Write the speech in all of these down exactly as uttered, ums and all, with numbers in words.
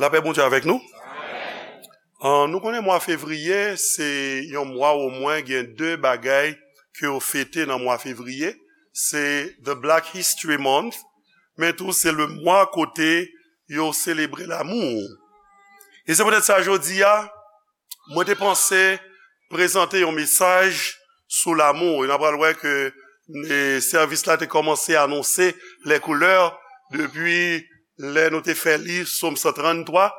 Lapè Bondye avèk nou. Ah, nou konnen mwa fevriye, se yon mwa omwen gen de bagay ke yo fete nan mwa fevriye. Se the Black History Month, men tou se le mwa kote yo selebre lanmou. E se poutèt sa jodi a, mwen te panse prezante yon mesaj sou lanmou. E n apral wè ke, e, sèvis la te kòmanse anonse les couleurs depi lè nou te fè li Sòm san tranntwa,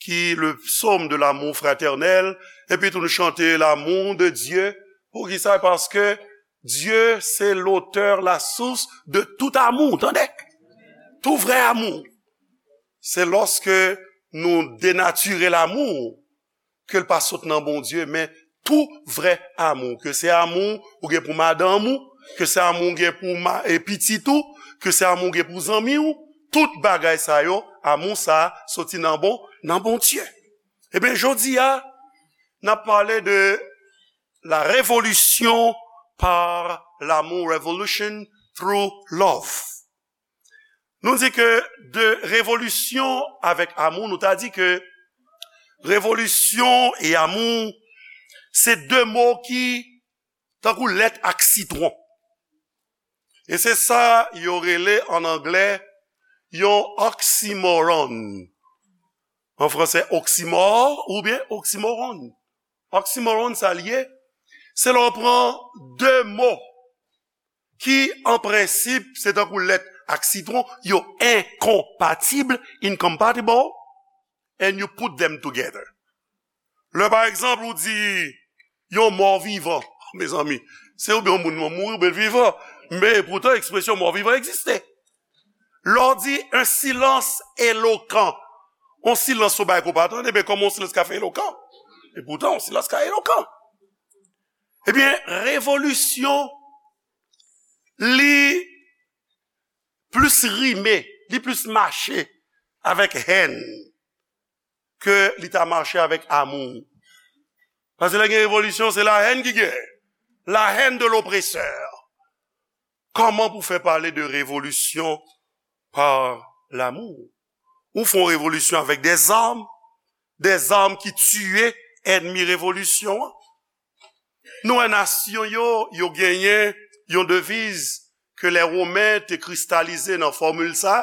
ki le psaume de l'amour fraternel, epi tou nou chante l'amour de Dieu. Poukisa? Paske Dieu, c'est l'auteur, la source de tout amour, tande? Tout vrè amou. Se lòske nou denatire lanmou, ke l pa sot nan Bondye, men tou vrè amou, ke se amou ou gen pou madanm ou, ke se amou ou gen pou ma-, e pitit ou, ke se amou ou gen pou zanmi ou, tout bagay sa yo, amou sa a soti nan bon, nan Bondye. Ebyen, jodi a, n ap pale de la révolution par l'amour, revolution through love. Nou di ke de revolisyon avèk amou, nou ta di ke revolisyon e amou, se de mo ki tankou lèt ak sitwon. E se sa yo rele an anglè yon oxymoron. An fransè, oxymore oubyen oxymoron. Oxymoron, sa l ye, se lè w pran de mo ki, an prensip, se tankou lèt ak sitwon, yo enkonpatib, incompatible, and you put them together. Lè, pa egzanp, ou di yon mò vivan, mezanmi, se oubyen yon moun mouri oubyen l vivan, men poutan ekspresyon mò vivan egziste. Lè w di un silence éloquent, yon silans ou bay ke w pa tande, men kòman yon silans ka fè elokan? E poutan, yon silans ka elokan. Ebyen, revolisyon, li plis rime, li plis mache avèk hèn ke li ta mache avèk amou. Paske lè gen revolisyon, se la hèn ki gen. La hèn de lopresè. Kòman pou fè pale de revolisyon pa lanmou? Ou fè yon revolisyon avèk dèzam, dèzam ki tiye ènmi revolisyon an. Nou wè nasyon yo, yo genyen yon deviz ke lè Women te kristalize nan fòmil sa,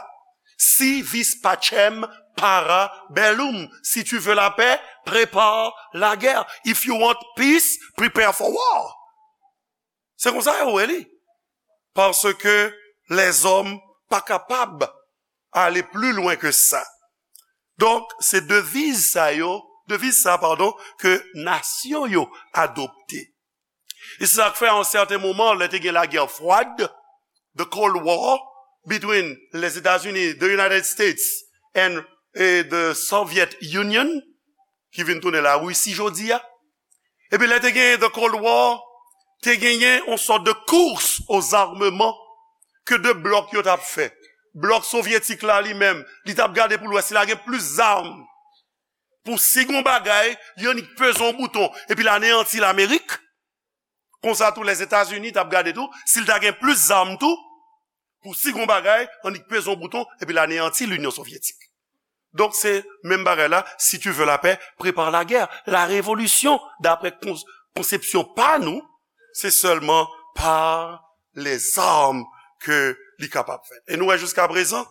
si vis pacem, para bellum. Si tu veux la paix, prépare la guerre. If you want peace, prepare for war. Se konsa yo wè li. Paske lèzòm pa kapab ale pli lwen ke sa. Donk, se deviz sa yo, deviz sa, padon, ke nasyon yo adopte. E se sa k fè, a yon sèten moman, lè te gen lagè fwad, the Cold War, between les États-Unis, the United States, and, eh, the Soviet Union, ki vin tounen Larisi jodi a. Epi lè te genyen the Cold War, te genyen yon sòt de course aux armements ke de blòk yo t ap fè. Blòk sovyetik la li menm, li t ap gade pou l wè si l a gen plis zam. Pou si gon bagay, li annik peze yon bouton, epi l aneyanti Lamerik. Konsa tou, Lèzetazini t ap gade tou, si l ta gen plis zam tou, pou si gon bagay, annik peze yon bouton, epi l aneyanti Linyon Sovyetik. Donk, se menm bagay la, si tu veux la paix, prépare la guerre. La révolution, daprè kons-, konsepsyon pa nou, se sèlman pa lèzam ke li kapab fèt. E nou wè jiskaprezan,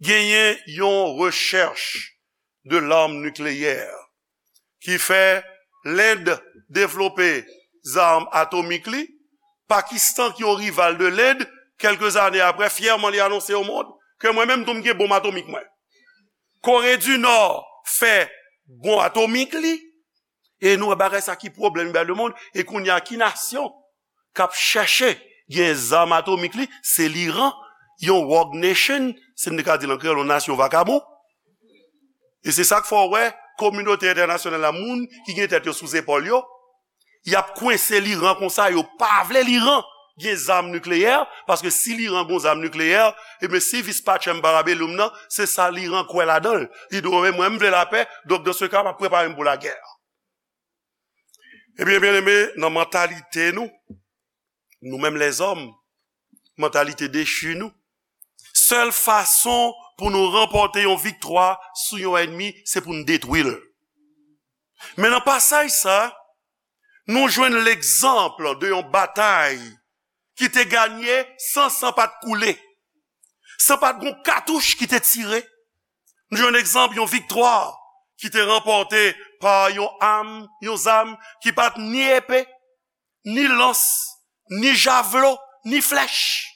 genyen yon rechèch de l'arme nucléaire ki fè Lend devlope zam atomik li, Pakistan, ki yon rival de Lend, kèlke zane aprè, fyèman li anonse o mond ke mwen menm tou m gen bonm atomik mwen. Kore di Nò fè bonm atomik li, e nou wè bagay sa ki pwoblèm li bay lemonn, e kounye a ki nasyon k ap chèche gen zam atomik li, se Liran, yon rogue nation, si n te ka di l an kreyòl, yon nasyon vakabon. E se sa k fè w wè kominote entènasyonal la, moun ki gen tèt yo sou zepòl yo, y ap kwense Liran konsa, yo pa vle Liran gen zam nikleyè, paske si Liran gen zam nikleyè, ebyen, si vis pacem para bellum nan, se sa Liran kwè ladan l. Li di, "Mwen, mwen, m vle lapè, donk, dans ce cas, m ap prepare m pou lagè." Ebyen, byeneme, nan mantalite nou, nou menm lèzòm, mantalite dechi nou, sèl fason pou nou ranpòte yon viktwa sou yon ènmi, se pou n detwi l. Men nan pasaj sa, nou jwenn legzanp de yon batay ki te ganye san san pa t koule, san pa t gon katouch ki te tire. Nou jwenn egzanp yon viktwa ki te ranpòte pa yon am, yon zam ki pa t ni epe, ni lans, ni javlo, ni flèch.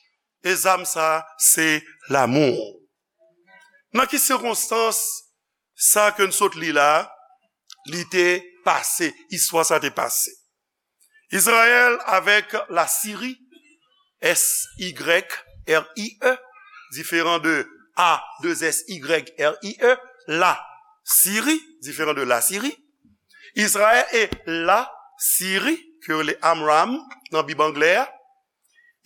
E zam sa a, se lanmou. Nan ki sikonstans sa ke n sot li la, li te pase, istwa sa te pase? Izrayèl avèk Lasiri, S Y R I E, diferan de A, de S Y R I E, Lasiri, diferan de Lasiri. Izrayèl e Lasiri, ke yo rele Amram nan Bib anglè a,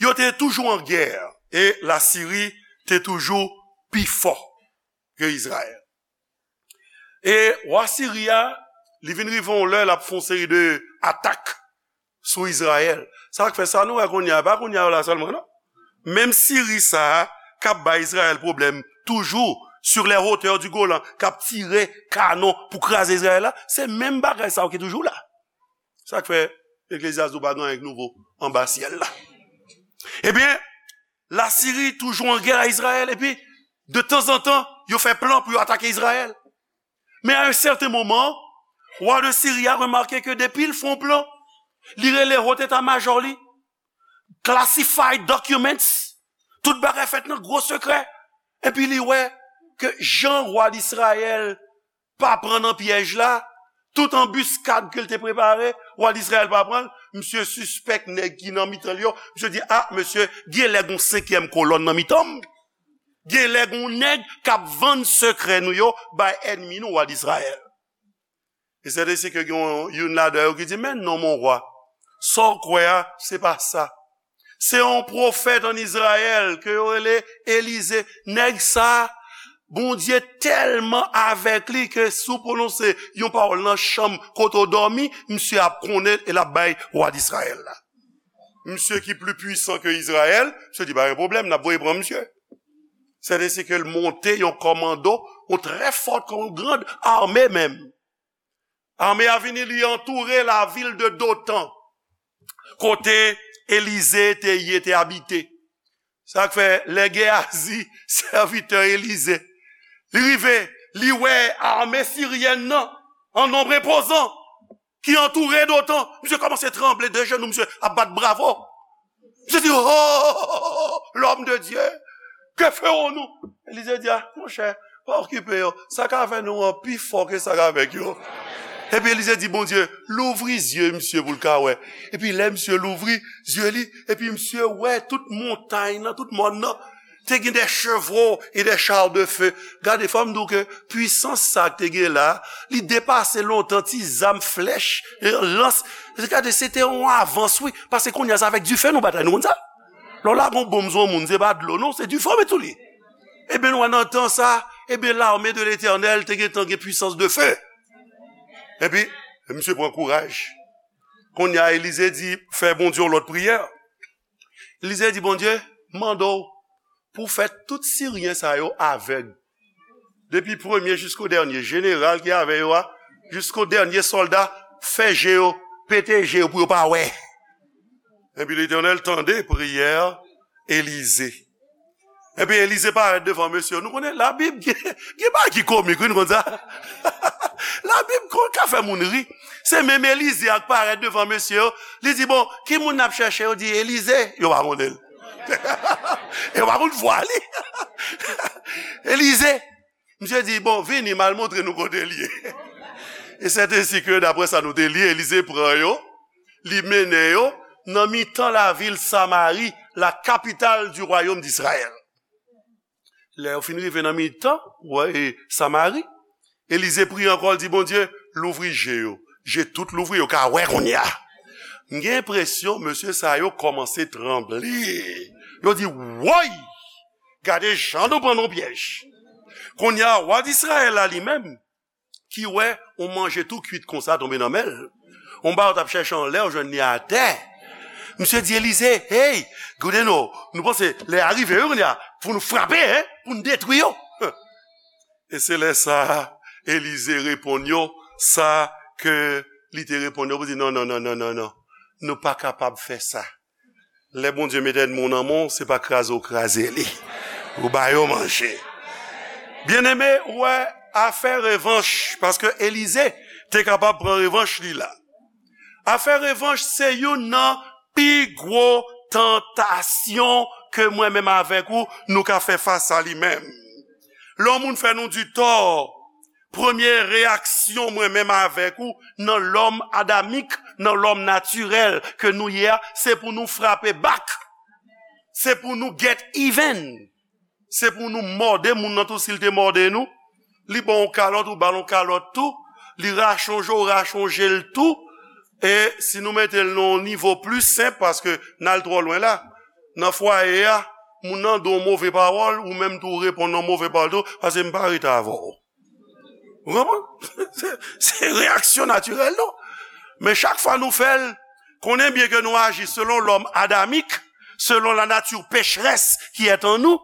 yo te toujou an gè, e Lasiri te toujou pi fò ke Izrayèl. E wa Siri a, li vin rive yon lè, l ap fè yon seri de atak sou Izrayèl. Sa k fè sa nou wè kounye a, pa kounye a la sèlman, non. Menm Siri sa a, k ap bay Izrayèl pwoblèm toujou, sur les hauteurs du Golan, k ap tire kanon pou kraze Izrayèl la, se menm bagay sa yo ki toujou la. Sa k fè Eklezyas di w pa gen anyen k nouvo anba syèl la. Ebyen, Lasiri toujou an gè a Izrayèl, epi de tanzantan, yo fè plan pou yo atake Izrayèl. Men a yon sèten moman, wa de Siri a remake ke depi l fè yon plan, li rele wot eta majò li, classified documents, tout bagay fèt nan gwo sekrè, epi li wè ke jan wa Izrayèl pa pran nan pyèj la, tout anbiskad ke l te prepare, wa Izrayèl pa pran l, misye sispèk nèg ki nan mitan l yo, misye di, a, mesye, gen lè gon senkyèm kolòn nan mitan m. Gen lè gon nèg k ap vann sekrè nou yo bay ènmi nou, wa Izrayèl. E sèten se ke gen yon, youn ladan yo ki di, men non, mon wa, sa w kwè a, se pa sa. Se yon pwofèt ann Izrayèl ke yo rele Elize. Nèg sa, Bondye tèlman avèk li ke si w pwononse yon pawòl nan chanm kote w dòmi, misye ap konnen e l ap bay wa Izrayèl la. Misye ki pli pwisan ke Izrayèl, misye di, pa gen pwoblèm, n ap voye pran misye. Sèten se ke l monte yon kòmando, yon trè fò, yon grand ame menm. Ame a vini, li antoure lavil de Dotan, kote Elize te ye, te abite. Sa k fè, lè Geyazi, sèvitè Elize, li rive, li wè ame siryèn nan, an nonb enpozan, ki antoure Dotan. Misye kòmanse tranble de jenou, misye ap bat bravo. Misye di, oh, l'homme de Dieu, que ferons-nous? Elize di, a, monchè, pa okipe yo. Sa k avè nou an pi fò ke sa k avèk yo. Epi Elize di, Bondye, louvri zye misye pou l ka wè. Epi lè misye louvri zye li, epi misye wè tout montay nan, tout mòn nan, te gen des chevaux et des chars de feu. Gade, fò m di w ke pwisans sa k te gen la, li depase lontan ti zam, flèch, lans. Gade, se te yon avans, wi. Paske kounye a, se avèk dife nou batay, nou konn sa? Lè w lage yon bonm sou yon moun, se pa dlo, non, se dife w met sou li. Ebyen, nou wè nan tan sa, ebyen, l'armée de l'Éternel te gentan gen pwisans de feu. Epi, misye pran kouraj. Kounye a, Elize di, fè Bondye yon lòt priyè. Elize di, Bondye, mande w pou fè tout Siryen sa yo avèg. Depi premye jisko dènye, jeneral ki avè yo a, jisko dènye sòlda, fè je yo, pete je yo pou yo pa wè. Epi Letènèl tande priyè Elize. Epi Elize parèt devan mesye yo. Nou konnen Labib gen, gen bagay ki komik, wi, nou konn sa. Labib konn ka fè moun ri. Se menm Elize a k parèt devan mesye yo. Li di, bon, ki moun n ap chèche? Yo di, Elize. Yo pa konnen l. Yo pa konn vwa li. Elize. Misye di, bon, vini, m al montre nou kote l ye. E sètensèten ke, daprè sa nou te li, Elize pran yo, li mennen yo nan mitan lavil Samari, la capitale du royaume d'Israël. Lè yo fin rive nan mitan, wè, e, Samari, Elize priye ankò, l di, Bondye, louvri je yo. Je tout louvri, yo ka wè kounye a. M gen enpresyon, mesye sa yo kòmanse tranble. Yo di, woy! Gade jan nou pran nan pyèj. Kounye a, wa Izrayèl la li menm, ki wè yon manje tou kwit konsa tonbe nan men l. Yon bagay w t ap chèche anlè, w jwenn li atè. Misye di Elize, hey, gade non, nou panse lè a rive, wi, kounye a, pou nou frape, hein, pou nou detwi yo. E se lè sa a, Elize reponn yo sa ke li te reponn yo pou di, "Non, non, non, non, non, non. Nou pa kapab fè sa. Lè Bondye met ènmi w nan men w, se pa kraze w kraze li. Ou ba yo manje." Byeneme, ou wè, afè revanch, paske Elize te kapab pran revanch li la. Afè revanch se youn nan pi gwo tantasyon ke mwen menm avèk ou, nou ka fè fas a li menm. Lè yon moun fè nou di tò, premye reyaksyon mwen menm avèk ou, nan lòm adamik, nan lòm natirèl ke nou ye a, se pou nou frape back. Se pou nou get even. Se pou nou mòde moun nan tou, si l te mòde nou. Li ba w yon kalòt, ou ba l yon kalòt tou. Li rachonje w, ou rachonje l tou. E si nou mete l nan yon nivo pli senp, paske n al twò lwen la. Nan fwaye a, moun nan di w yon move pawòl, ou menm tou ou reponn yon move pawòl tou, paske m pa rete avè w. Ou konprann? Se, se reyaksyon natirèl nou. Men chak fwa nou fè l, konnen byen ke nou aji selon lòm adamik, selon la nature pécheresse qui est en nous.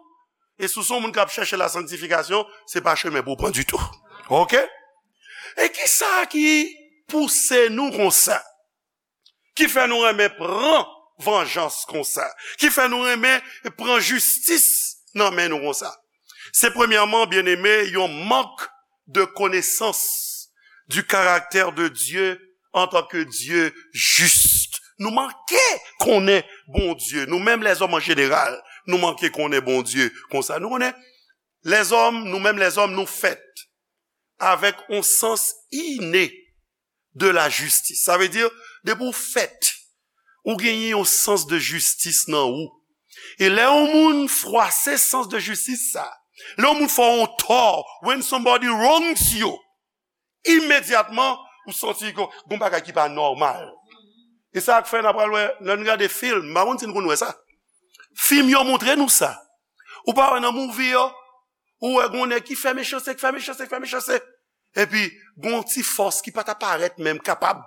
E si w se yon moun k ap chèche la sanctification, se pa chemen pou w pran ditou. Oke? E kisa ki pouse nou konsa? Ki fè nou renmen pran vanjans konsa? Ki fè nou renmen pran jistis nan men nou konsa? Se premyèman, byeneme, yon mank de connaissance du caractère de Dieu en tant que Dieu juste. Nou manke konnen Bondye, nou menm lèzòm an jeneral, nou manke konnen Bondye konsa. Nou konnen lèzòm, nou menm lèzòm, nou fèt avèk yon sans inné de la justice. Sa vle di, depi w fèt, ou genyen yon sans de jistis nan ou. E lè yon moun fwase sans de jistis sa, lè yon moun fè w yon tò, when somebody wrongs you, imedyatman, ou santi ke gon bagay ki pa nòmal. E sa k fè n ap pral wè, lè n gade fim, m pa konn si n konn wè sa. Fim yo montre nou sa. Ou pa wè nan movie yo, ou wè gon nèg ki fè mechanste, ki fè mechanste, ki fè mechanste. Epi, gon ti fòs ki pa ta parèt menm kapab.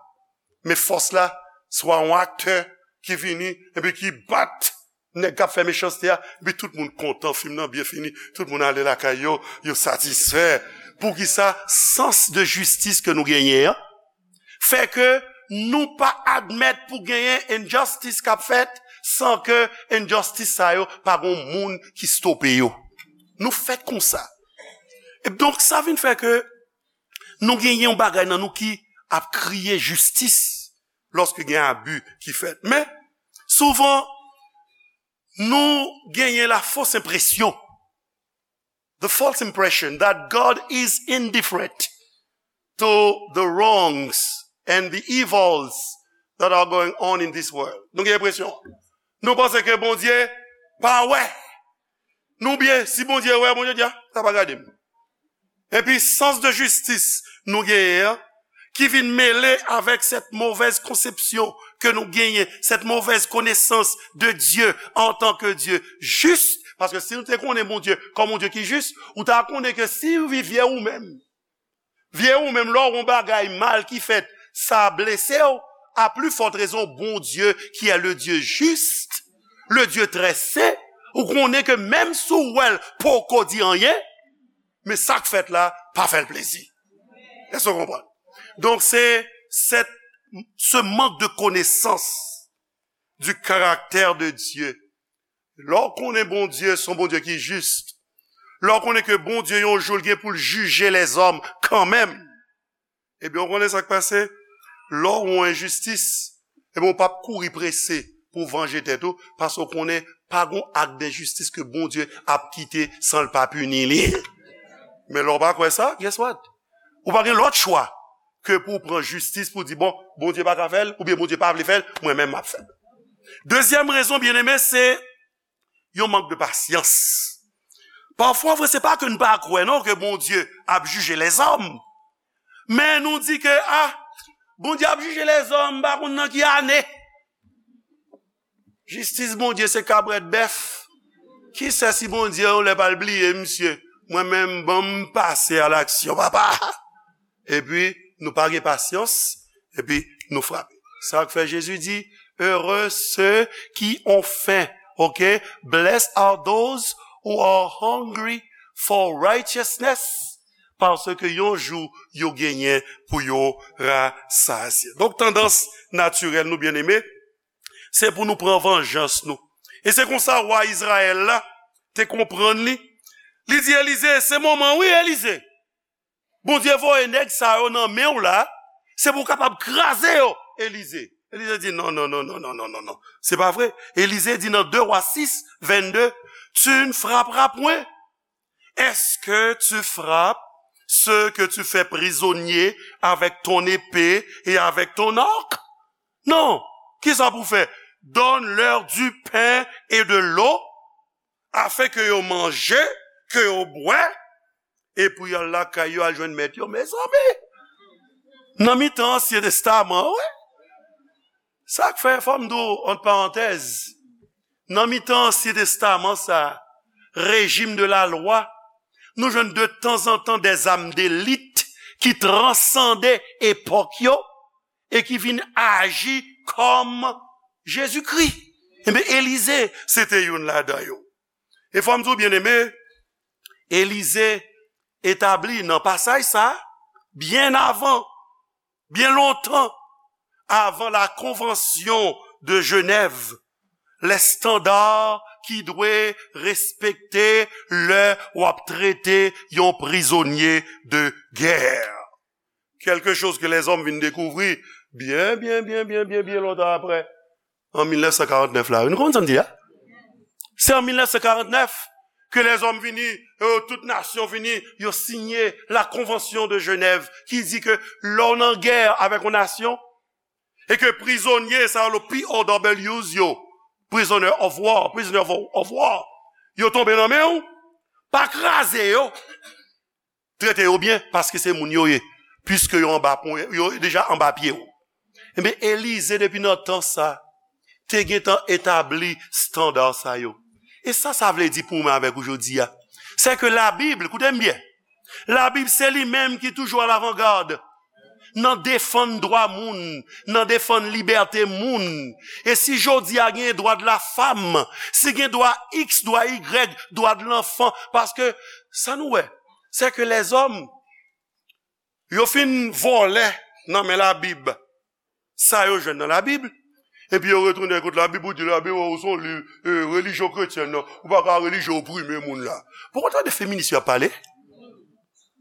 Men fòs la, swa yon aktè ki vini, epi ki bat nèg k ap fè mechanste a, epi tout moun kontan, fim nan byen fini, tout moun ale lakay yo, yo satisfè. Poukisa? Sans de jistis ke nou genyen an, fè ke nou pa admèt pou genyen injustice k ap fèt san ke injustice sa yo pa gon moun ki stope yo. Nou fèt konsa. E donk, sa vin fè ke nou genyen yon bagay nan nou ki ap kriye jistis lòske gen abi ki fèt. Men, souvan, nou genyen la fausse impression, the false impression that God is indifferent to the wrongs and the evils that are going on in this world. Nou gen enpresyon. Nou panse ke Bondye pa wè. Nou byen, si Bondye wè, Bondye di, "Ah, sa pa gade m." Epi sans de jistis nou genyen an, ki vin mele avèk cette mauvaise conception ke nou genyen, cette mauvaise connaissance de Dieu en tant que Dieu juste, paske si nou te konnen Bondye kòm yon Dye ki jis, ou ta konnen ke si w vye ou menm, vye ou menm, lè w wè yon bagay mal ki fèt, sa blese w, à plus forte raison, Bondye, qui est le Dieu juste, le Dieu très saint, ou konnen ke menm si w wè l poko di anyen, men sa k fèt la pa fè l plezi. Èske w konprann? Donk, se, se, ce manque de connaissance du caractère de Dieu. Lè w konnen Bondye se yon Bondye ki jis, lè w konnen ke Bondye yon jou l gen pou l jije lèzòm kanmenm, ebyen, w konnen sa k pase? Lè w wè yon enjistis, ebyen, w p ap kouri prese pou w vanje tèt ou, paske w konnen pa gon ak denjistis ke Bondye ap kite san l pa pini li. Men lè w pa kwè sa, guess what? Ou pa gen lòt chwa ke pou w pran jistis pou w di, "Bon, Bondye pa ka fè l, oubyen Bondye pa vle fè l, mwen menm m ap fè l." Dezyèm rezon, byeneme, se yon mank de pasyans. Pafwa, vre, se pa ke n pa kwè, non, ke Bondye ap jije lèzòm. Men nou di ke, ah, Bondye ap jije lèzòm, m pa konn nan ki ane. Jistis Bondye se kabrèt bèf. Ki sè si Bondye yon lè pral bliye misye? Mwen menm, ban m pase a laksyon, papa. Epi, nou pa gen pasyans, epi nou frape. Sa k fè Jezi di, "Heureux ceux qui ont faim." Ok? "Blessed are those who are hungry for righteousness, paske yon jou yo genyen pou yo rasazye. Donk, tandans natirèl nou, byeneme, se pou nou pran vanjans nou. E se konsa wa Izrayèl la te konprann li. Li di Elize, "Se moman, wi, Elize. Bondye voye nèg sa yo nan men w la, se pou w kapab kraze yo, Elize." Elize di, "Non, non, non, non, non, non, non, non. Se pa vre." Elize di nan de Wa sis, vennde, "Tu ne frapperas point. Est-ce que tu frappes ceux que tu fais prisonniers avec ton épée et avec ton arc? Non. Kisa pou fè? Donne-leur du pain et de l'eau, afin que yo manje, que yo bwè, epi y al lakay yo al jwenn mèt yo." Mezanmi! Nan mitan Ansyen Testaman, wi. Sa k fè, fò m di w, ant parantèz, nan mitan Ansyen Testaman sa, régime de la loi, nou jwenn de tanzantan des âmes d'élite ki transande epòk yo e ki vin aji kòm Jezikri. Ebyen, Elize, se te youn ladan yo. E fò m di w, byeneme, Elize etabli nan pasaj sa, byen avan, byen lontan avan la Convention de Genève, les standards ki dwe respekte lè w ap trete yon prizonye de guerre. Quelque chose que les hommes vin dekouvri byen, byen, byen, byen, byen, byen lontan apre, an mil nèf san karant nèf la. Nou konprann sa m di a? Se an mil nèf san karant nèf ke lèzòm vini, euh, tout nasyon vini, yo siyen la Convention de Genève ki di ke lè w nan gè avèk yon nasyon, e ke prizonye sa yo, le P O Ws yo, prisoner of war, prisoner of, of war, yo tonbe nan men w, pa kraze yo. Trete yo byen, paske se moun yo ye, piske yo anba pon, yo deja anba pye w. Ebyen, Elize, depi nan tan sa, te gentan etabli estanda sa yo. E sa, sa vle di pou mwen avèk ou jodi a, se ke Labib, koute m byen, Labib se li menm ki toujou alavangad nan defann dwa moun, nan defann libète moun. E si jodi a gen dwa de la fam, si gen dwa X, dwa Y, dwa de lanfan, paske sa nou wè, se ke lèzòm, yo fin vòlè nan men Labib sa yo jwenn nan Labib, epi yo retounen kot Labib, ou di Labib, oh, se yon liv, eh, relijyon kretyen nan, ou pa ka relijyon oprime moun la. Poko tande feminis yo ap pale?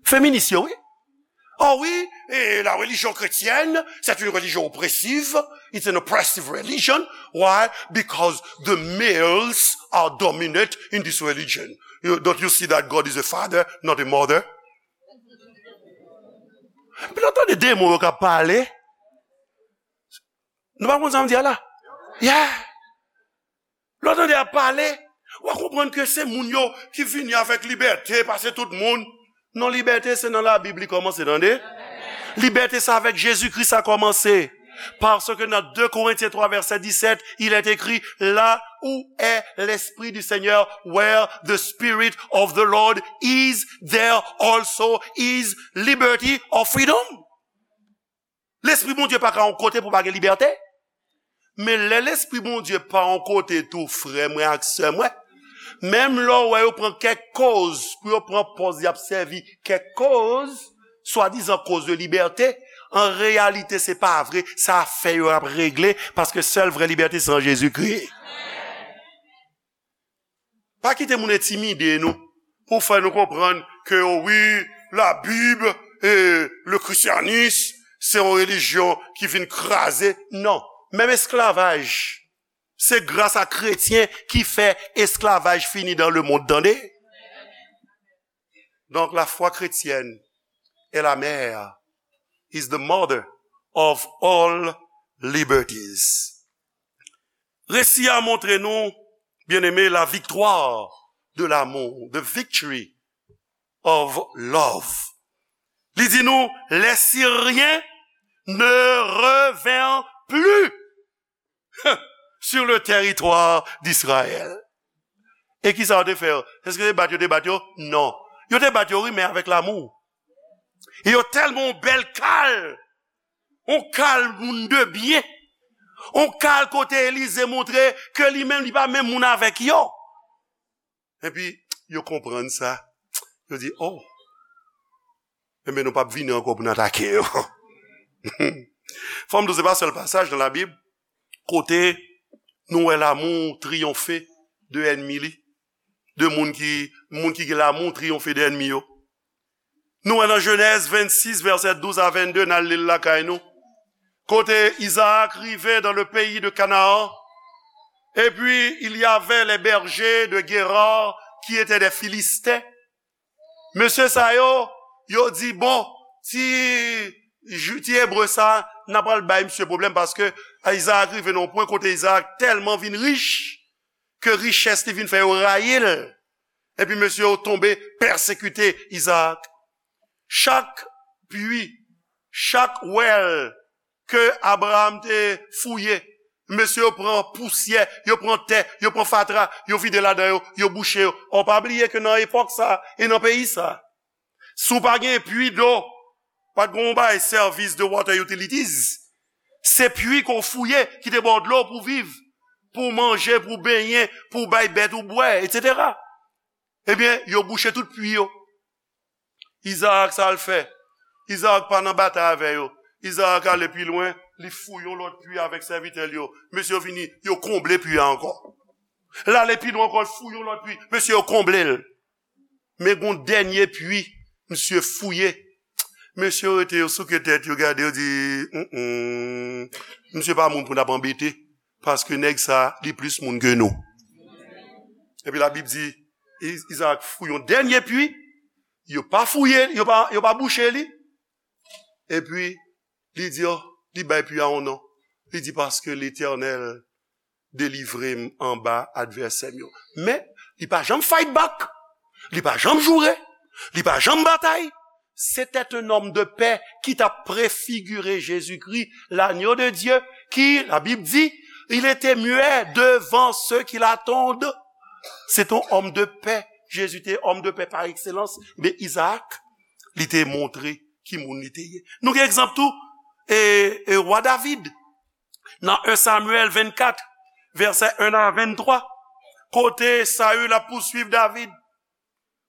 Feminis yo, wi. Oh wi, eh, la religion chrétienne, c'est une religion oppressive. It's an oppressive religion. Why? Because the males are dominant in this religion. You, don't you see that God is a father, not a mother? Epi lè w tande demon yo k ap pale, nou pa konn sa m di a la? Yeah. Lè w tande y ap pale, w a konprann ke se moun yo ki vini avèk libète, pase tout moun. Non, libète se nan Labib li kòmanse, tande. Libète sa avèk Jezikri sa kòmanse. Parce que dans deux Corinthiens trois verset dix-sept, il est écrit, là où est l'Esprit du Seigneur, where the Spirit of the Lord is, there also is liberty or freedom. Lespri Bondye pa ka yon kote pou pa gen libète. Men lè Lespri Bondye pa yon kote tou, frè mwen ak sè mwen, menm lè w wè yo pran kèk koz pou yo pran pòz y ap sèvi kèk koz, swadizan koz de libète, an reyalite, se pa vre, se afè yo y ap regle, paske sèl vrè libète se an Jezikri. Pa kite moun entimide nou pou fè nou konprann ke, oh wi, Labib e le christianisme, se yon relijyon ki vin kraze. Non. Menm esklavaj, se gras a kretyen ki fè esklavaj fini dans le monde, tande. Donc, la foi chrétienne est la mère, is the mother of all liberties. Resi a montre nou, byeneme, la viktwa de lanmou, the victory of love. Li di nou, les Syriens ne revinrent plus sur le territoire d'Israël. E kisa yo te fè yo? Èske se bat yo te bat yo? Non. Yo te bat yo, wi, men avèk lanmou. E yo tèlman yon bèl kal, yon kal moun de byen, yon kal kote Elize montre ke li menm, li pa menm moun avèk yo. Epi, yo konprann sa. Yo di, oh, Enben, nou p ap vini ankò pou n atake yo. Fò m di w, se pa sèl pasaj nan Labib kote nou wè lanmou triyonfe de ènmi li, de moun ki, moun ki gen lanmou triyonfe de ènmi yo. Nou wè nan Jenèz vennsis, vèsè douz a vennde, n al li l lakay nou. Kote Izaak rive dans le pays de Canaan, et puis il y avait les bergers de Guérard qui étaient des Philistins. Mesye sa yo, yo di, bon, ti, Ju- ti Ebre sa, n a pral bay misye pwoblèm, paske Izaak rive nan yon pwen kote Izaak tèlman vin rich, ke richès li vin fè yo rayi l. Epi mesye yo tonbe pèsekite Izaak. Chak pwi, chak wèl ke Abraram te fouye, mesye yo pran pousyè, yo pran tè, yo pran fatra, yo vide ladan yo, yo bouche yo. Ò, pa bliye ke nan epòk sa e nan peyi sa, si w pa gen pwi dlo, pa t gen yon bagay sèvis de water utilities. Se pwi ke w fouye ki te ba w dlo pou w viv, pou w manje, pou w benyen, pou w bay bèt ou bwè, etsetera. Ebyen, yo bouche tout pwi yo. Izaak, sa l fè? Izaak pa nan batay avè yo. Izaak ale pi lwen, li fouye yon lòt pwi avèk sèvitè l yo. Mesye yo vini, yo konble pwi a ankò. L ale pi lwen ankò, l fouye yon lòt pwi. Mesye yo konble l. Men gon dènye pwi, misye fouye. Mesye yo rete, yo souke tèt, yo gade, yo di, "Mm-mm, misye pa moun pou n ap anbete, paske nèg sa, li plis moun ke nou." Epi Labib di, I- Izaak fouye yon dènye pwi, yo pa fouye, yo pa, yo pa bouche li. Epi, li di, oh, li bay pwi a yon non. Li di, paske Letènèl delivre m anba advèsè m yo. Men, li pa janm fight back. Li pa janm joure. Li pa janm batay. C'était un homme de paix qui t'a préfiguré Jésus-Christ, l'agneau de Dieu, qui, la Bible dit, il était muet devant ceux qui l'attendent. C'est un homme de paix. Jésus était homme de paix par excellence. Men Izaak, li te montre ki moun li te ye. Nou gen egzanp tou, e, e wa David. Nan en Samyèl vennkat, vèsè en a venntwa, kote Saül ap pouswiv David.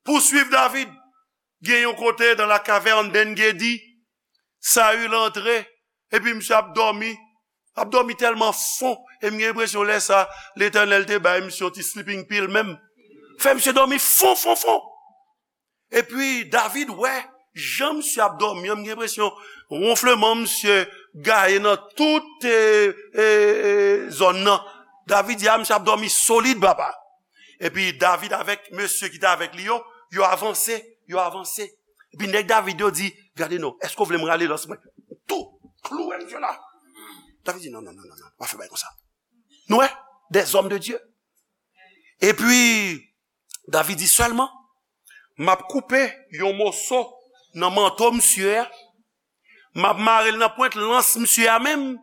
Pouswiv David. Gen yon kote dans la caverne d'En-Gedi, Saül antre, epi misye ap dòmi. Ap dòmi tèlman fon, e m gen enpresyon lè sa, Letènèl te bay misye yon ti sleeping pill menm. Fè misye dòmi fon, fon, fon. Epi David wè jan misye ap dòmi an, m gen enpresyon wonfleman misye gaye nan tout, e, e, e, zòn nan. David di, a, misye ap dòmi solid, papa. Epi David avèk mesye ki te avèk li yo, yo avanse, yo avanse. Epi nèg David yo di, gade non, èske w vle m rale lans mwen? Tou, klouwe misye la. David di, non, non, non, non, non, pa fè bagay konsa. Nou wè, des hommes de Dieu. Epi, David di sèlman, m ap koupe yon moso nan manto misye a, m ap mare l nan pwent lans misye a menm,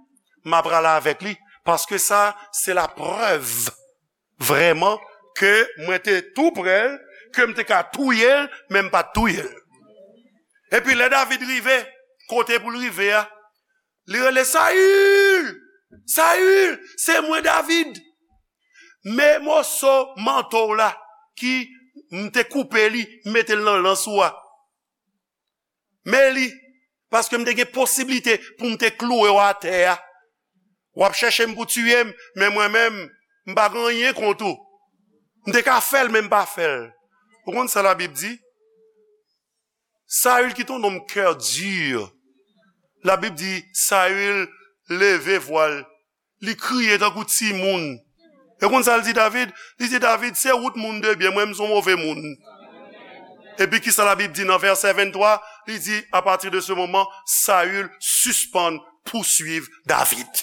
m ap rale avèk li, paske sa, se laprèv vrèman ke mwen te tou prè l, ke m te ka touye l, men m pa t touye l. Epi lè David rive, kote pou l rive a, li rele, Sayil! Sayil! Se mwen David! Men moso manto w la ki m te koupe li, m mete l nan lans ou a. Men li, paske m te gen posiblite pou m te klouwe w atè a. W ap chèche m pou tiye m, men mwen menm, m pa gen anyen kont ou. M te ka fè l, men m pa fè l. Ou konn sa Labib di? Saül, qui est un homme cœur dur. Labib di, Saül leve vwa l, li kriye tankou timoun. E konn sa l di David? Li di, David, se ou t moun de byen, mwen, m se yon move moun. Epi kisa Labib di nan vèsè venntwa? Li di, à partir de ce moment, Saül sispann pouswiv David.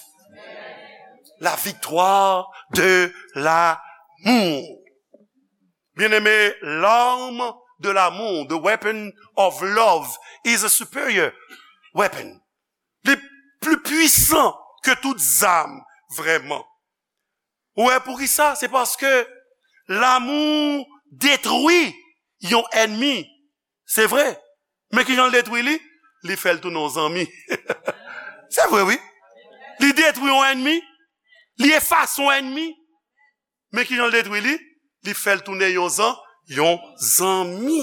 La victoire de l'amour. Bien-aimé, l'arme de l'amour, the weapon of love, is a superior weapon. Li pli pwisan ke tout zam, vrèman. Ou wè poukisa? Se paske lanmou detwi yon ènmi. Se vre. Men kijan l detwi li? Li fè l tounen yon zanmi. Se vre, wi. Li detwi yon ènmi. Li efase yon ènmi. Men kijan l detwi li? Li fè l tounen yon zan, yon zanmi.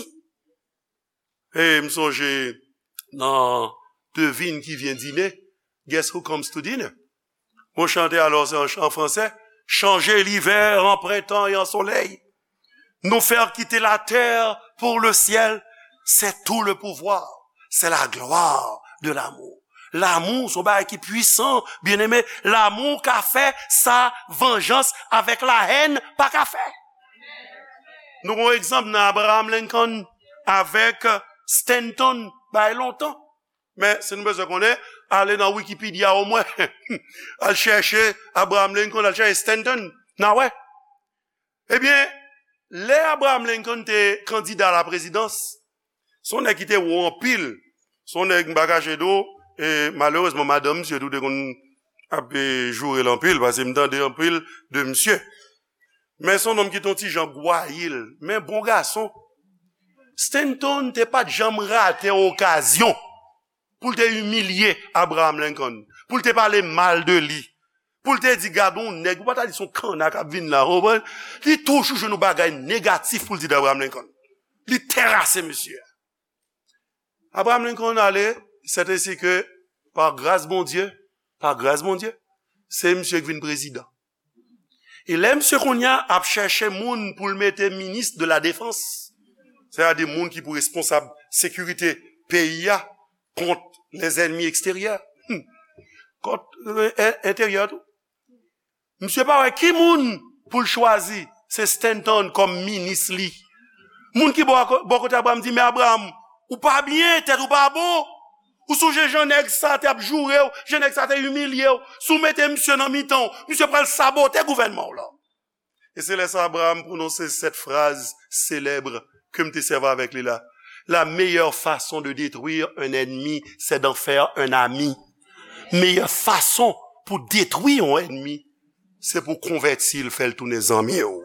E m sonje, nan Devine qui vient dîner, guess who comes to dinner? Bon, chante alò, se an, an fransè. Changer l'hiver en printemps et en soleil. Nous faire quitter la terre pour le ciel, c'est tout le pouvoir, c'est la gloire de l'amour. Lanmou se yon bagay ki pwisan, byeneme. Lanmou ka fè sa vanjans avèk lahèn pa ka fè. Nou gen yon egzanp nan Abraham Lincoln avèk Stanton, bay lontan. Men, si nou bezwen konnen, ale nan Wikipedia omwen. Al chèche Abraham Lincoln, al chèche Stanton, n a wè. Ebyen, lè Abraham Lincoln te kandida a la prezidans, se yon nèg ki te wo anpil. Se yon nèg, m pa kache di w, e malerezman, madanm misye tou te konn ap, e, joure l anpil, paske m tande anpil de misye. Men se yon nonm ki te yon ti jan gwayil, men bon gason. Stanton te pa t janm rate okazyon pou l te imilye Abraham Lincoln, pou l te pale mal de li, pou l te di, "Gade yon nèg, ou pa ta di se yon kanna k ap vin la," ou konprann? Li toujou jwenn yon bagay negatif pou l di de Abraham Lincoln. Li terase mesye a. Abraham Lincoln ale, c'est ainsi que, par grâce Bondye, par grâce Bondye, se misye ki vin prezidan. E lè misye kounye a ap chèche moun pou l mete minis de la defans, sètadi moun ki pou responsab sekirite peyi a kont les ennemis extérieurs, hmm, kont, e, e, enteryè tou. Misye pa wè ki moun pou l chwazi, se Stanton kòm minis li. Moun ki bò, bò kote Abraham di, "Men Abraham, ou pa byen, tèt ou pa bon. Ou sonje jan nèg sa te ap joure w, jan nèg sa te imilye w. Si w mete misye nan mitan w, misye pral sabote gouvènman w lan." E se lè sa Abraham pwononse sèt fraz selèb ke m te sèvi avèk li la. La meilleure façon de détruire un ennemi, c'est d'en faire un ami. Meyè fason pou detwi yon ènmi, se pou konvèti l, fè l tounen zanmi w.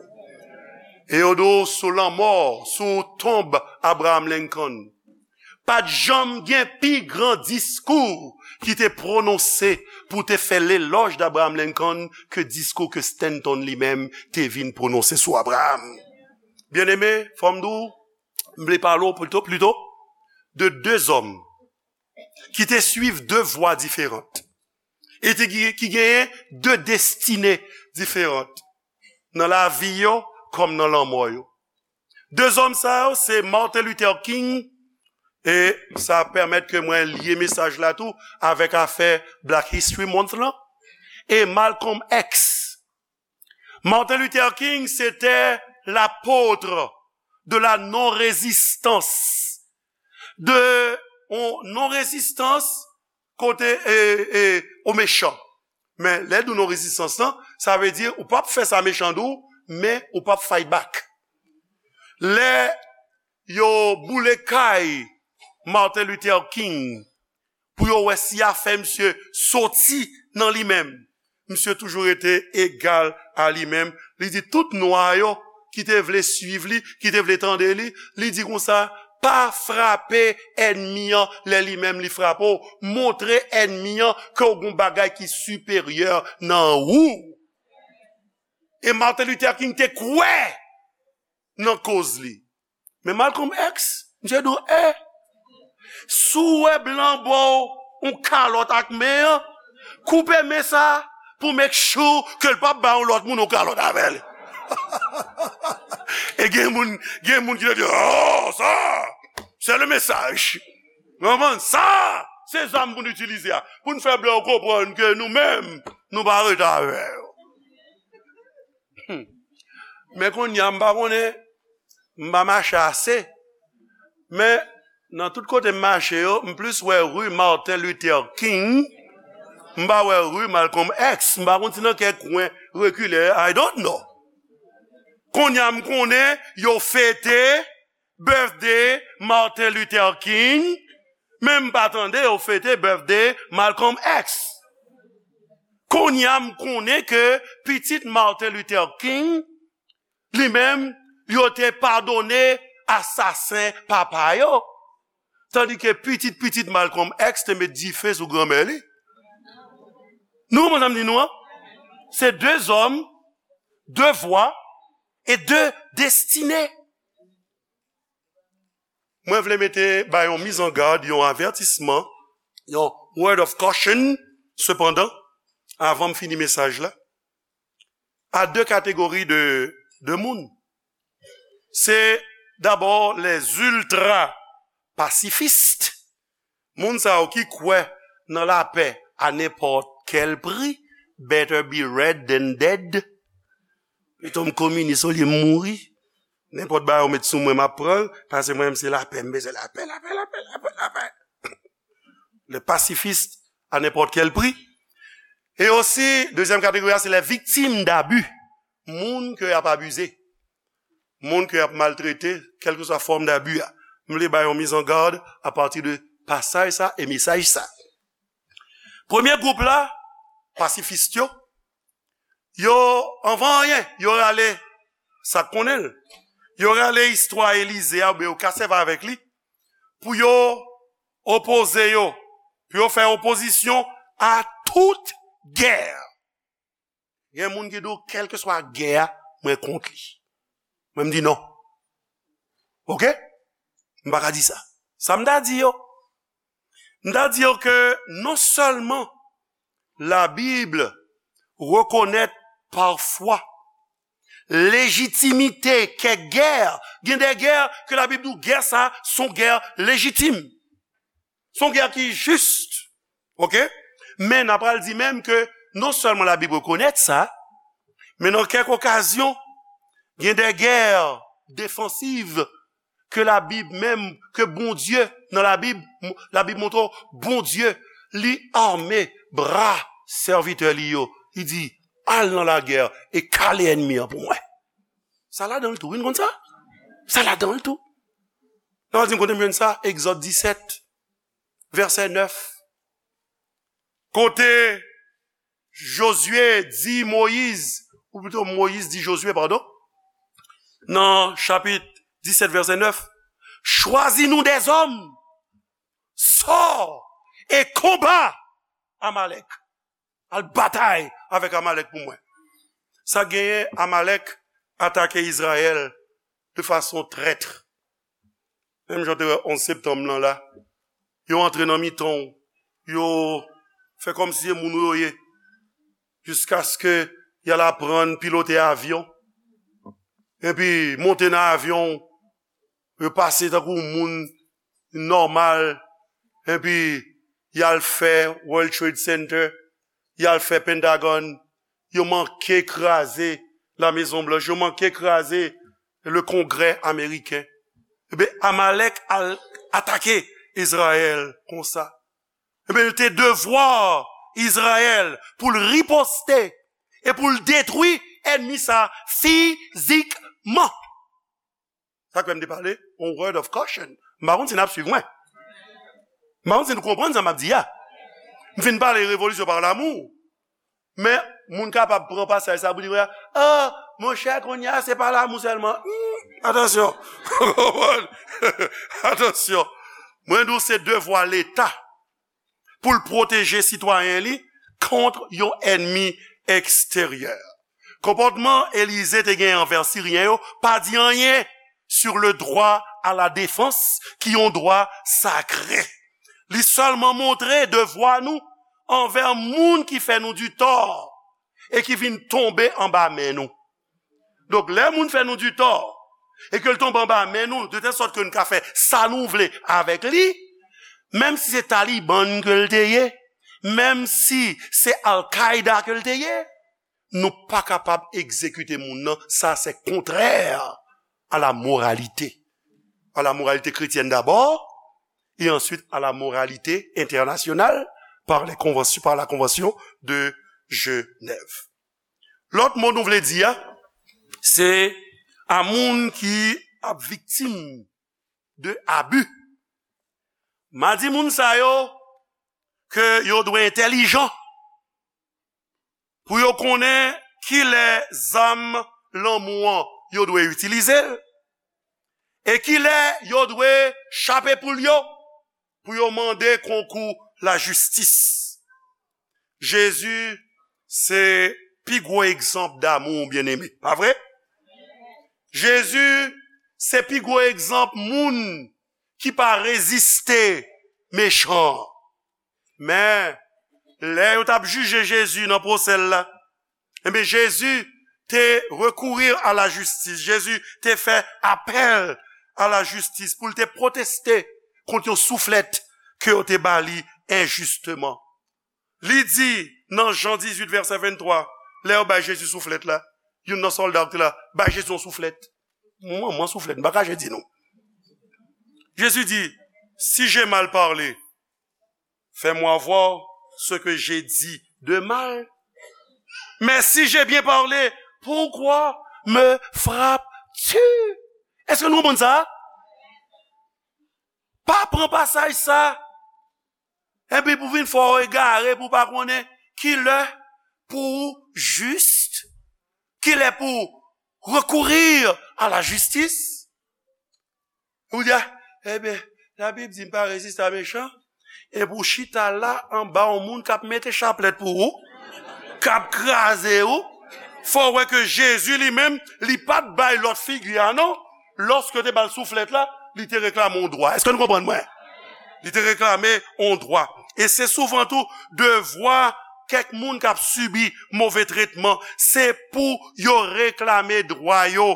E yo di w sou lanmò, sou tonb Abraham Lincoln, pa t janm gen pi gran diskou ki te pwononse pou te fè lelòj d'Abraham Lincoln ke diskou ke Stanton li menm te vin pwononse sou Abraham. Byeneme, fò m di w, m vle pale w plito, plito de de zòm ki te swiv de vwa diferan e te, ki, ki genyen de destine diferan nan lavi yo kòm nan lanmò yo. De zòm sa yo, se Martin Luther King, e sa pèmèt ke mwen lye mesaj la tou avèk afè Black History Month lan, e Malcolm X. Martin Luther King, c'était l'apôtre de la non-résistance, de yon non-rezistans kote, e, e, o mechan. Men, lè di w non-rezistans lan, sa vle di ou p ap fè sa mechan di w, men ou p ap fight back. Lè yo boule kay Martin Luther King pou yo wè si y a fè misye soti nan li menm, misye toujou rete egal a li menm. Li di tout nwa yo ki te vle swiv li, ki te vle tande li, li di konsa, pa frape ènmi an lè li menm li frape w. Montre ènmi an ke w gen yon bagay ki siperyè nan ou. E Martin Luther King te kwè nan koz li. Men Malcolm X, misye di w, e, si w wè blan ba w yon kalòt ak men an, koupe men sa pou make sure ke l p ap bay yon lòt moun yon kalòt avè l. E gen moun, gen moun ki te di, oh, sa, c'est le message. Ou konprann? Sa, se zam pou n itilize a. Pou n fè blan yo konprann ke nou menm, nou pa rete avè yo. Hmm. Men kounye a, m pa konnen, m pa mache ase. Men, nan tout kote m mache yo, m plis wè ri Martin Luther King, m pa wè ri Malcolm X. M pa konn si nan kèk kwen rekile, I don't know. Kounye a, m konnen yo fete birthday Martin Luther King, men m pa tande yo fete birthday Malcolm X. Kounye a, m konnen ke pitit Martin Luther King, li menm, yo te padone asasen papa yo. Tandike pitit pitit Malcolm X te met dife sou granmè li. Nou konprann sa m di nou an? Se de zòm, de vwa e de destine. Mwen vle mete ba yon mizangad, yon avètisman, yon word of caution, sepandan, avan m fini mesaj la, a de kategori de, de moun. Se dabò les ultra pacifistes, moun sa yo ki kwè nan lapè a nenpòt kèl pri, better be red than dead. Pito m kominis olye m mouri. Nenpòt bagay ou met sou mwen, m ap pran l, paske mwen menm se lapè, m bezwen lapè, lapè, lapè, lapè, lapè. Le pacifiste à n'importe quel prix. E osi, dezyèm kategori a, se les victimes d'abus. Moun ke y ap abize. Moun ke y ap maltrete, kèlkeswa fòm d'abi a. M vle bay yon mizangad apati de pasaj sa e mesaj sa. Premye gwoup la, pasifis yo, yo, anvan anyen, yo rale, sa k konnen l, yo rale istwa Elize a, oubyen yo ka sèvi avèk li, pou yo opoze yo, pou yo fè opozisyon a tout gè. Gen moun ki di w, kèlkeswa gè a, mwen kont li. Mwen, m di non. Oke? M pa ka di sa. Sa m ta di yo? M ta di yo ke non sèlman Labib rekonèt pafwa lejitimite kèk gè, gen de gè ke Labib di w gè sa, se yon gè lejitim. Se yon gè ki jis. Oke? Men n a pral di menm ke non sèlman Labib rekonèt sa, men nan kèk okazyon, gen de gè defansiv ke Labib menm, ke Bondye, nan Labib, Labib montre w, Bondye, li ame bra sèvitè li yo. Li di, al nan lagè e kale ènmi an pou mwen. Sa ladan l tou, wi, n konn sa? Sa ladan l tou. Nan di m kote m jwenn sa, Egzòd disèt, vèsè nèf. Kote Jozye di Moyiz, ou pito Moyiz di Jozye, padon, nan chapit disèt, vèsè nèf, chwazi nou dèzòm, sò e konba Amalèk. Al batay avèk Amalèk pou mwen. Sa genyen, Amalèk atake Izrayèl de fason trèt. Menm jan w te wè onz septanm lan la, yo antre nan mitan w, yo fè kòmsi se moun ou yo ye, jiskaske y al aprann pilote avyon, epi monte nan avyon, yo pase tankou moun nòmal, epi y al fè World Trade Center, y al fè Pentagon, yo manke kraze La Maison Blanche, yo manke kraze le Kongrè ameriken. Ebyen, Amalèk al atake Izrayèl konsa. Ebyen, li te devwa Izrayèl pou l riposte e pou l detwi ènmi sa fizikman. Sa k fè m te pale, on word of caution. M pa konn si n ap swiv mwen. M pa konn si nou konprann sa m ap di a. M fin pale revolisyon pa lamou. Men, moun kapab pran pasaj sa pou di, ah, monchè, kounye a, se pa lamou sèlman. Hmm, atansyon. Atansyon. Mwen di w se devwa Leta pou l pwoteje sitwayen li kont yon ènmi eksteryè. Konpòtman Elize te gen anvè Siryen yo pa di anyen sur le droit à la défense, ki yon dwa sakre. Li sèlman montre devwa nou anvè moun ki fè nou di tò e ki vin tonbe anba men nou. Donk, lè moun fè nou di tò e ke l tonbe anba men nou, de tèl sòt ke nou ka fè sa nou vle avèk li, menm si se Taliban ke l te ye, menm si se Al-Qaeda ke l te ye, nou pa kapab egzekite moun nan. Sa, se kontrè à la moralité. À la moralité chrétienne d'abord, et ensuite à la moralité internationale par les conventions, par la Convention de Genève. Lòt mo nou vle di a, se a moun ki ap viktim de abi. M a di moun sa yo ke yo dwe entèlijan pou yo konnen kilè zam lanmou an yo dwe itilize l, e kilè yo dwe chape poul yo pou yo mande konkou lajistis. Jezi se pi gwo egzanp damou, byeneme, pa vre? Jezi se pi gwo egzanp moun ki pa reziste mechan an. Men, lè yo t ap jije Jezi nan pwosè l la, ebyen, Jezi te recourir à la justice. Jezi te fè apèl a la jistis pou l te pwoteste kont yon souflèt ke yo te ba li enjisteman. Li di nan Jan dizuit, vèsè venntwa, lè yo bay Jezi souflèt la, youn nan sòlda ki te la, bay Jezi yon souflèt. Mwen, mwen souflèt, m pa ka jedi nou. Jezi di, si j'ai mal parlé, fais-moi voir ce que j'ai dit de mal. Mais si j'ai bien parlé, pourquoi me frappes-tu? Èske nou konprann sa? Pa pran pasaj sa epi pou vin fè w egare, pou w pa konnen ki lè pou w jis, ki lè pou w recourir à la justice. Ou di, a, ebyen, Labib di m pa reziste a mechan, epi w chita la anba yon moun k ap mete chaplèt pou ou, k ap kraze ou. Fò w wè ke Jezi li menm, li pa t bay lòt figi a non. Lòske yo te ba l souflèt la, li te reklame yon dwa. Èske nou konprann mwen? Li te reklame yon dwa. E se souvan tou devwa kèk moun k ap sibi move tretman, se pou yo reklame dwa yo,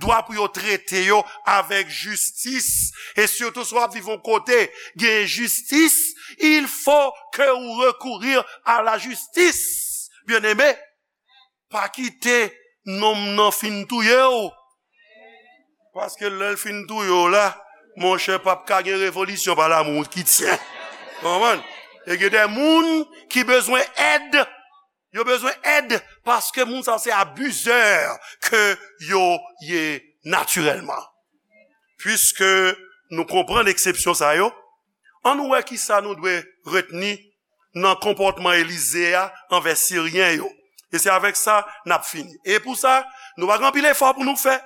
dwa pou yo trete yo avèk jistis. E sitou si w ap viv yon kote gen jistis, il faut que ou recourir à la justice. Byeneme, pa kite nonm nan fin touye w. Paske lè l fin touye w la, monchè, p ap ka gen revolisyon pa lamou ki tyen. Konprann? E gen de moun ki bezwen èd. Yo bezwen èd paske moun sa se abizè ke yo ye natirèlman. Piske nou konprann eksepsyon sa yo, ann nou wè kisa nou dwe retni nan konpòtman Elize a anvè Siryen yo. E se avèk sa n ap fini. E pou sa, nou pa gen anpil efò pou nou fè.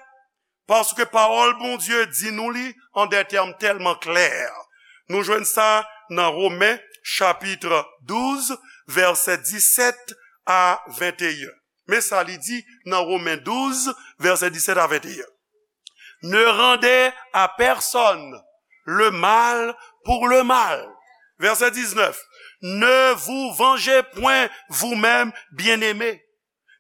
Paske pawòl Bondye di nou li an de tèm tèlman klè. Nou jwenn sa nan Women, chapit douz, vèsè disèt a venteyen. Men sa li di nan Women douz, vèsè disèt a venteyen. Ne rendez à personne le mal pour le mal. Verset dix-neuf. Ne vous vengez point vous-même, bien-aimés,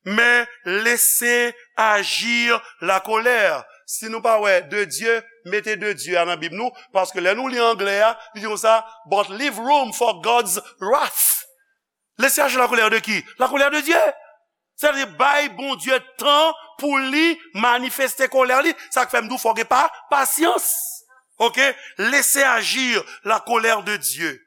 mais laissez agir la colère. Si nou pa wè de Dieu, mete de Dieu a nan Bib nou, paske lè nou li anglè a, li di konsa, but leave room for God's wrath. Laissez agir la colère de qui? La colère de Dieu. Sètadi bay Bondye tan pou li manifeste kolè li. Sa k fè m di w fò gen pa, pasyans. Oke? Laissez agir la colère de Dieu.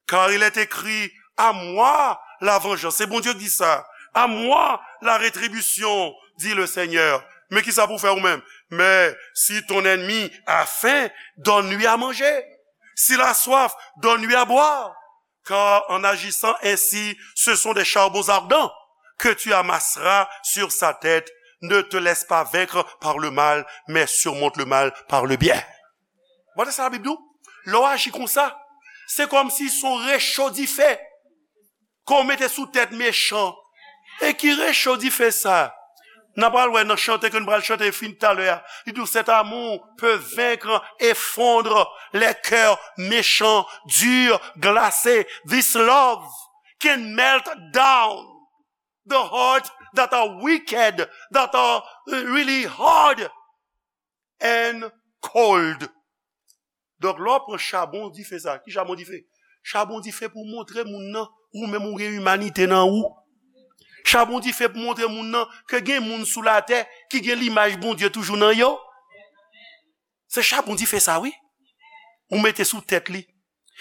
Car il est écrit, à moi la vengeance. Se Bondye ki di sa. À moi la rétribution, dit le Seigneur. Men kisa pou fè ou menm? Mais si ton ennemi a faim, donne-lui à manger. S'il a soif, donne-lui à boire. Car en agissant ainsi, ce sont des charbons ardents que tu amasseras sur sa tête. Ne te laisse pas vaincre par le mal, mais surmonte le mal par le bien. Gade sa Labib di w. Lè w aji konsa, se kòmsi se yon recho dife ke w mete sou tèt mechan. E ki recho dife sa? N a pral wè nan chante ke n pral chante fin talè a. Li di w, cet amour peut vaincre et fondre les cœurs méchants, durs, glacés. This love can melt down the heart that are wicked, that are uh, really hard and cold. Donk, lè w pran chabon dife sa, ki chabon dife? Chabon dife pou montre moun nan, ou menm ou gen imanite nan ou. Chabon dife pou montre moun nan ke gen moun sou latè ki gen limaj Bondye toujou nan yo. Se chabon dife sa, wi. Ou mete sou tèt li.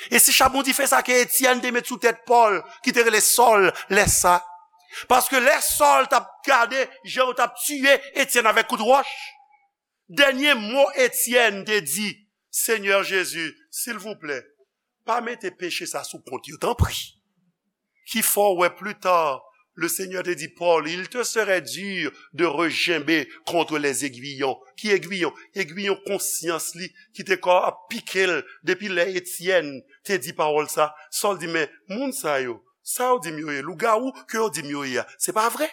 E se chabon dife sa ke Etyèn te met sou tèt Pòl, ki te rele Sòl, lè sa. Paske lè Sòl t ap gade jan yo t ap tiye Etyèn avèk kout wòch, dènye mo Etyèn te di, Senyè Jezi, silvouplè, pa mete peche sa sou kont yo, tanpri. Ki fè w wè pli ta, le Seigneur te di Paul, il te serait dur de regimber contre les aiguillons. Ki egwiyon? Egwiyon konsyans li ki te ka ap pike l depi lè Etyèn te di pawòl sa. Sòl di, men moun sa yo, sa yo di m yo ye, lougawou ke yo di m yo ye a, se pa vre.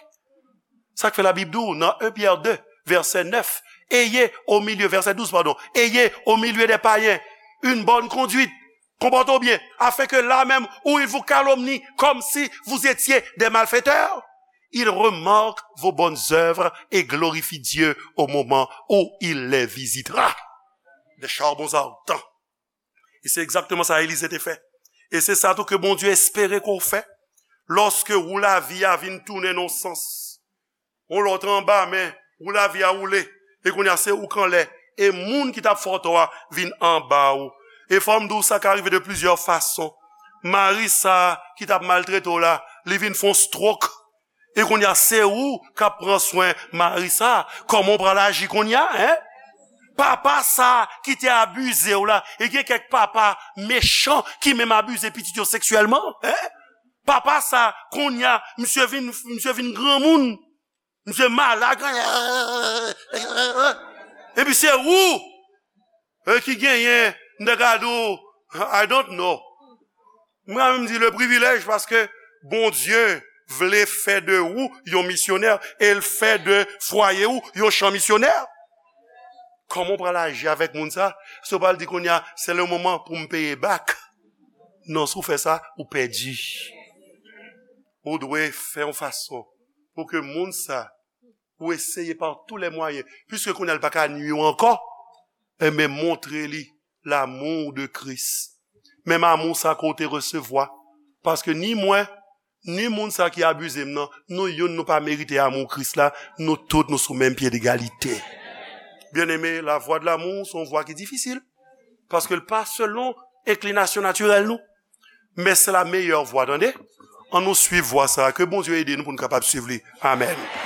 Sa k fè Labib di w nan un Pyè de, vèsè nèf, ayez au milieu, verset douze, pardon, ayez au milieu des païens une bonne conduite, comportez-vous bien, afin que là même où ils vous calomnient comme si vous étiez des malfaiteurs, ils remarquent vos bonnes œuvres et glorifient Dieu au moment où il les visitera. Des charbons ardents. E se egzakteman sa Elize te fè. E se sa tou ke Bondye espere ke w fè. Lòske wou lavi a vin tounen nan sans, yon lòt anba men, wou lavi a woule, e kounye a se ou k anlè, e moun ki t ap fè w tò a vin anba ou. E fò m di w, sa ka rive de plizyè fason. Mari sa ki t ap maltrete w la, li vin fè yon stroke. E kounye a, se ou k ap pran swen mari sa. Kòman w pral aji kounye a, en? Papa sa ki te abize w la, e gen kèk papa mechan ki menm abize pitit yo seksyèlman, en? Papa sa, kounye a, misye vin, misye vin granmoun, misye malad, epi se ou e ki genyen, m te ka di w, I don't know. Mwen menm di le privilèj, paske Bondye vle fè de ou yon misyonè, e l fè de fwaye ou yon chan misyonè. Kòman w pral aji avèk moun sa? Si w pral di kounye a, se le moman pou m peye back. Non, si w fè sa, ou pèdi. Ou dwe fè yon fason pou ke moun sa, ou eseye pa tou lè mwayen, piske kounye a l pa ka nwi w ankò, enben montre li l'amour de Christ. Menm amou sa ke w te resevwa. Paske ni mwen, ni moun sa ki abize m nan, nou youn nou pa merite amou Kris la, nou tout nou sou menm pye degalite. Byeneme, la vwa de l'amour se yon vwa ki difisil. Paske l pa selon enklinasyon natirèl nou. Men se la meyè vwa, tande. Ann nou swiv vwa sa a. Ke Bondye ede nou pou nou kapab swiv li. Amèn.